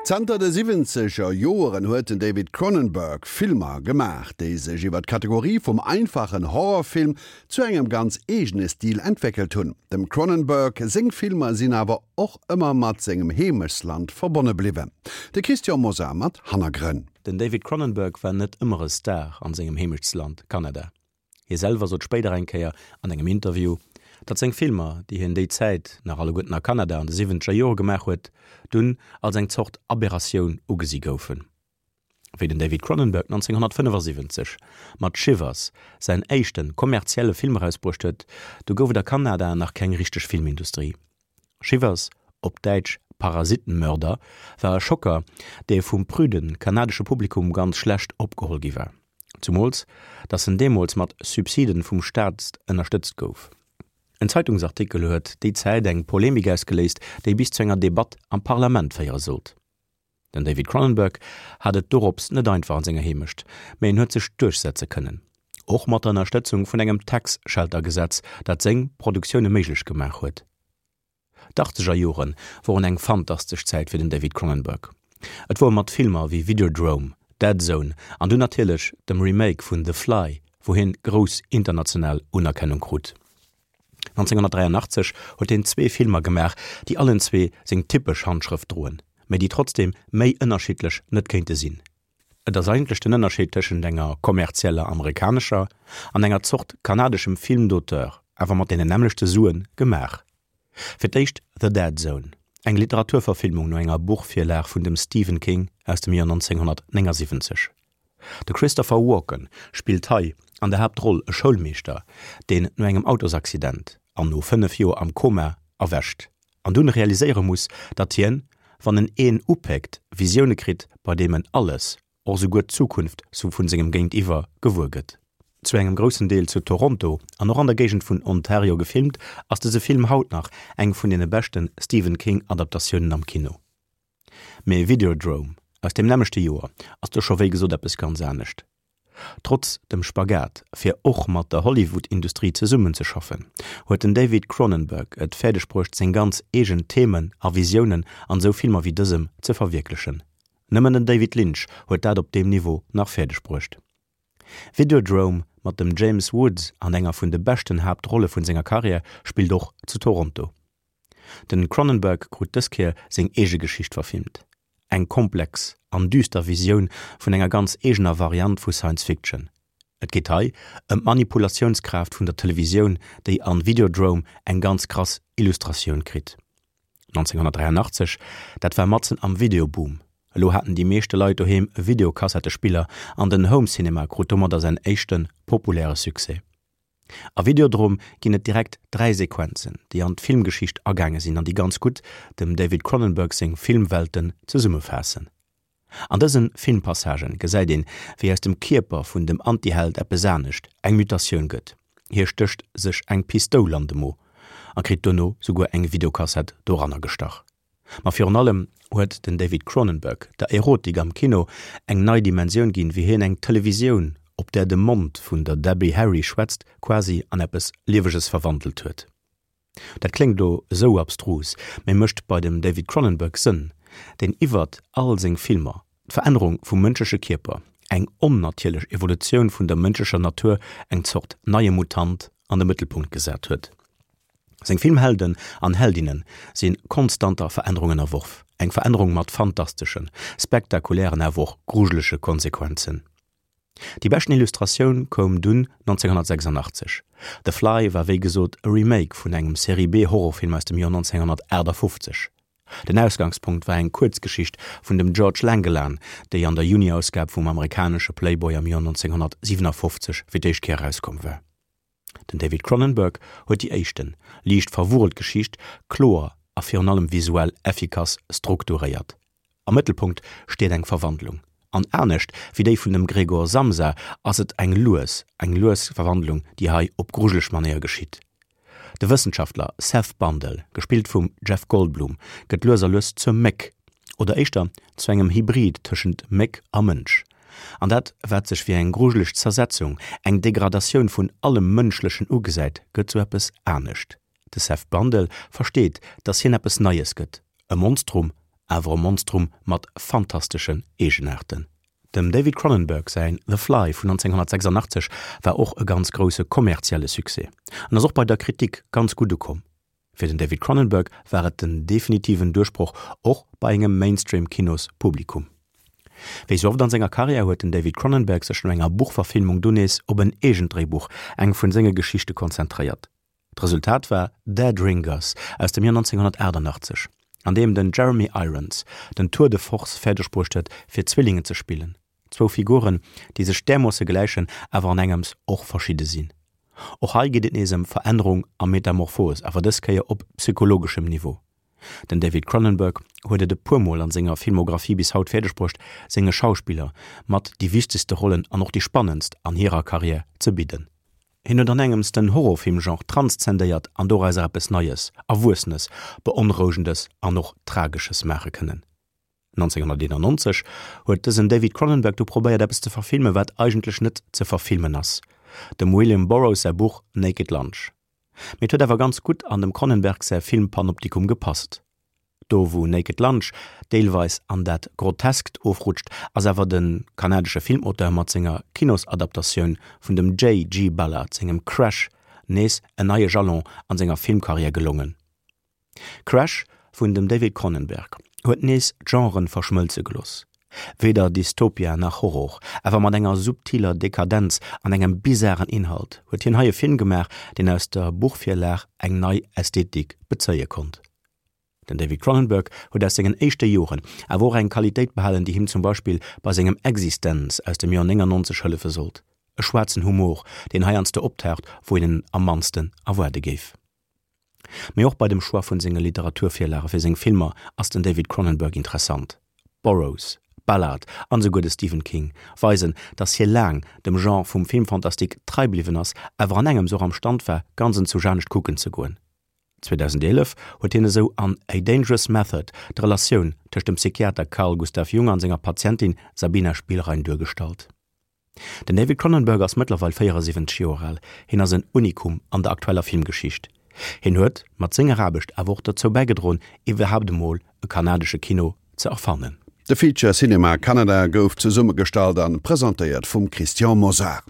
Zanter de siwwenzeger Joeren huet den David Cronenberg Filmer gemaach, déi sech iwwer d'Kategorie vum einfachen Horrorfilm zu engem ganz eegene Stil entwéckelt hunn. Dem Cronenberg seng Filmer sinn awer och ëmmer mat sengem Heemechtsland verbonne bliwwen. De Christian Mosar mat Hannergrënn. Den David Cronenberg war net ëmmer e Star an sengem Heemechtsland Kanada. Hie selwer sot spéider eng Kéier an engem Interview, datt seng Filmer, déi hien déi Zäit nach alleguerten a Kanada an de siwwenzeger Jore gemaach huet, dunn als eng Zort Aberratioun ugesi goufen. Wéi den David Cronenberg 1975 mat Shivers säin éischte kommerzielle Film erausbruecht huet, du gouf et a Kanada nach keng richteg Filmindustrie. Shivers, op Däitsch Parasitenmörder, war e Schocker, dee vum prüde kanadesche Publikum ganz schlecht opgeholl gi war. Zumools, datt en deemools mat Subsiden vum Staat ënnerstëtzt gouf. En Zeitungsartikel huet déi Zäit eng Polemik ausgeléist, déi bis zu enger Debatt am Parlament féiere sollt. Den David Cronenberg hat et dorops net einfach an senger Heemecht, mä en huet sech duerchsetze kënnen. Och mat der Ënnerstëtzung vun engem Tax Shelter Gesetz, dat seng Produktioune méiglech gemaach huet. D'Achtzeger Jore woren eng fantastesch Zäit fir den David Cronenberg. Et wor mat Filmer wéi Videodrome, Dead Zone an dunn natierlech dem Remake vun The Fly, wou hien grouss international Unerkennung krut. 1983 huet hien zwee Filmer gemaach, déi allen zwee seng typesch Handschrëft droen, mä déi trotzdeem méi ënnerschiddlech net kéinte sinn. Et ass eigentlech den Ënnerscheed tëschent enger kommerzieller amerikanescher an enger Zort kanadeschem Film d'auteur, awer mat deenen nämmlechte Suen gemaach. Fir d'éischt The Dead Zone, eng Literaturverfilmung no enger Buchvirlag vun dem Stephen King aus dem Joer 1979. De Christopher Walken spillt hei an der Haaptroll e Schoulmeeschter, deen no engem Autosaccident an no 5 Joer am Koma erwächt an dunn realiséiere muss, datt hien, wann en een upéckt, Visioune kritt, bei deem en alles, och esouguer d'Zukunft vun sengem Géintiwwer, gewuer gëtt. Zu engem groussen Deel zu Toronto an och an der Géigend vun Ontario gefilmt, ass dëse Film haut nach eng vun deene beschte Stephen King Adaptatiounen am Kino. Mee Videodrome aus deem nämmlechte Joer ass do scho wéi gesot eppes ganz anescht. Trotz dem Spagat fir och mat der Hollywood-Industrie zesummenzeschaffen, huet den David Cronenberg et fäerdeg bruecht seng ganz eegen Themen a Visiounen an esou Filmer wéi dësem ze verwierklechen. Nëmmen den David Lynch huet dat op deem Niveau nach fäerdeg bruecht. Videodrome mat dem James Woods an enger vun de beschten Haaptrolle vun senger Karriär spillt och zu Toronto. Den Cronenberg krut dës Kéier seng eege Geschicht verfilmt. Eng komplex an düster Visioun vun enger ganz eegener Variant vu Science Fiction. Et geet hei ëm d'Manipulatiounskraaft vun der Televisioun, déi an Videodrome eng ganz krass Illustratioun kritt. 1983, dat war matzen am Videoboom. Elo haten déi meeschte Leit doheem e Videokassettespiller an den Home Cinema krut domadder säin éischte populäre Succès. A Videodrome ginn et direkt 3 Sequenzen, déi an d'Filmgeschicht agaange sinn an déi ganz gutt dem David Cronenberg seng Filmwelten zesummefaassen. An dëse Filmpassagen gesäit een, wéi aus dem Kierper vun dem Antiheld eppes anescht, eng Mutatioun gëtt. Hie stécht sech eng Pistoul an de Mo a kritt duerno souguer eng Videokassett doranner gestach. Ma virun allem huet den David Cronenberg der Erotik am Kino eng nei Dimensioun ginn, wéi hien eng Televisioun, op där de Mond vun der Debbie Harry schwätzt, quasi an eppes Lieweges verwandelt huet. Dat kléngt elo esou abstrus, mee mécht bei dem David Cronenberg Sënn, deen iwwert all seng Filmer d'Verännerung vum mënschleche Kierper, eng onnatierlech Evolutioun vun der mënschlecher Natur, eng Zort neie Mutant, an de Mëttelpunkt gesat huet. Seng Filmhelden an Heldinnen si konstanter Verännerung ënnerworf, eng Verännerung mat fantasteschen, spektakulären awer och grujelege Konsequenzen. Déi beschten Illustratioun koum dunn 1986. The Fly war wéi gesot e Remake vun engem Serie-B-Horrorfilm aus dem Joer 1958. Den Ausgangspunkt war eng Kuerzgeschicht vun dem George Langelaan, déi an der Juni-Ausgab vum amerikanesche Playboy am Joer 1957 fir d'éischt Kéier erauskomm war. Den David Cronenberg huet déi éischten, liicht verwurrelt Geschicht kloer a virun allem visuell effikass strukturéiert. Am Mëttelpunkt steet eng Verwandlung, an anescht wéi déi vun dem Gregor Samsa ass et eng lues, eng lues Verwandlung, déi hei op grujeleg Manéier geschitt. De Wëssenschaftler Seth Bundle, gespillt vum Jeff Goldblum, gëtt lues a lues zur Méck, oder éischter zu engem Hybrid tëschent Méck a Mënsch. An dat, wat sech wéi eng grujeleg Zersetzung, eng Degradatioun vun allem Mënschlechen ugesäit, gëtt zu eppes anescht. De Seth Brundle versteet, dass hien eppes Neies gëtt, e Monstrum. awer e Monstrum mat fantasteschen Eegenaarten. Dem David Cronenberg säin The Fly vun 1986 war och e ganz grousse kommerzielle Succès an ass och bei der Kritik ganz gutt ukomm. Fir den David Cronenberg war et den definitiven Duerchbroch och bei engem Mainstream-Kinos-Publikum. Wéi sou oft an senger Karriär huet den David Cronenberg sech no enger Buchverfilmung dunn nees op en eegent Dréibuch, eng vun senge Geschichte konzentréiert. D'Resultat war Dead Ringers aus dem Joer 1988, an deem den Jeremy Irons den Tour de force fäerdeg bruecht huet fir Zwillingen ze spillen, zwou Figuren, déi sech därmoosse gläichen, awer an engems och verschidde sinn. Och hei geet et nees ëm Verännerung a Metamorphos, awer dës Kéier op psychologeschem Niveau. Den David Cronenberg huet et e puer Mol an senger Filmographie bis haut fäerdeg bruecht, senge Schauspiller mat déi wichtegste Rollen an och déi spannendst an hirer Karriär ze bidden. Hien huet an engems den Horrorfilm-Genre transzendéiert an dorauser eppes Neies, Erwuessenes, Beonrouegendes an och Tragesches maache kënnen. 1991 huet dësen David Cronenberg du probéiert eppes ze verfilmen, wat eigentlech net ze verfilmen ass, dem William Burroughs säi Buch Naked Lunch. Mee et huet awer ganz gutt an dem Cronenberg säi Filmpanoptikum gepasst. Do wou Naked Lunch deelweis an dat Groteskt ofrutscht, ass awer de kanadesche Filmauteur mat senger Kinosadaptatioun vun dem JG. Ballard sengem Crash nees en neie Jalon an senger Filmkarriär gelongen. Crash vun dem David Cronenberg huet nees d'Genren verschmëlze gelooss. Weder Dystopia nach Horror, awer mat enger subtiler Dekadenz an engem bizaren Inhalt huet hien hei e Film gemaach, deen aus der Buchvirlag eng nei Ästhetik bezéie konnt. Den David Cronenberg huet aus sengen éischte Joren awer och eng Qualitéit behalen, déi him zum Beispill bei sengem Existenz aus dem Joer 99 hëllefe sollt, e schwaarzen Humor, deen heiansdo optaucht, wou een en am mannsten erwaarde géif. Mee och bei dem Choix vun senge Literaturvirlage fir seng Filmer ass den David Cronenberg interessant. Burroughs, Ballard an esouguer de Stephen King weisen, datt hie laang dem Genre vum Film fantastique trei bliwwen ass, awer an engems och am Stand war, ganz enzousch anescht kucken ze goen. 2011 huet hien esou an A Dangerous Method d'Relatioun tëscht dem Psychiater Carl Gustav Jung an senger Patientin Sabina Spielrein duergestallt. Den David Cronenberg ass mëttlerweil 74 Joer al. Hien ass en Unikum an der aktueller Filmgeschicht. Hien huet mat senger Aarbecht awer och dozou bäigedroen, iwwerhaapt emol e kanadesche Kino ze erfannen. De Feature Cinema Canada gouf zesummegestallt an presentéiert vum Christian Mosar.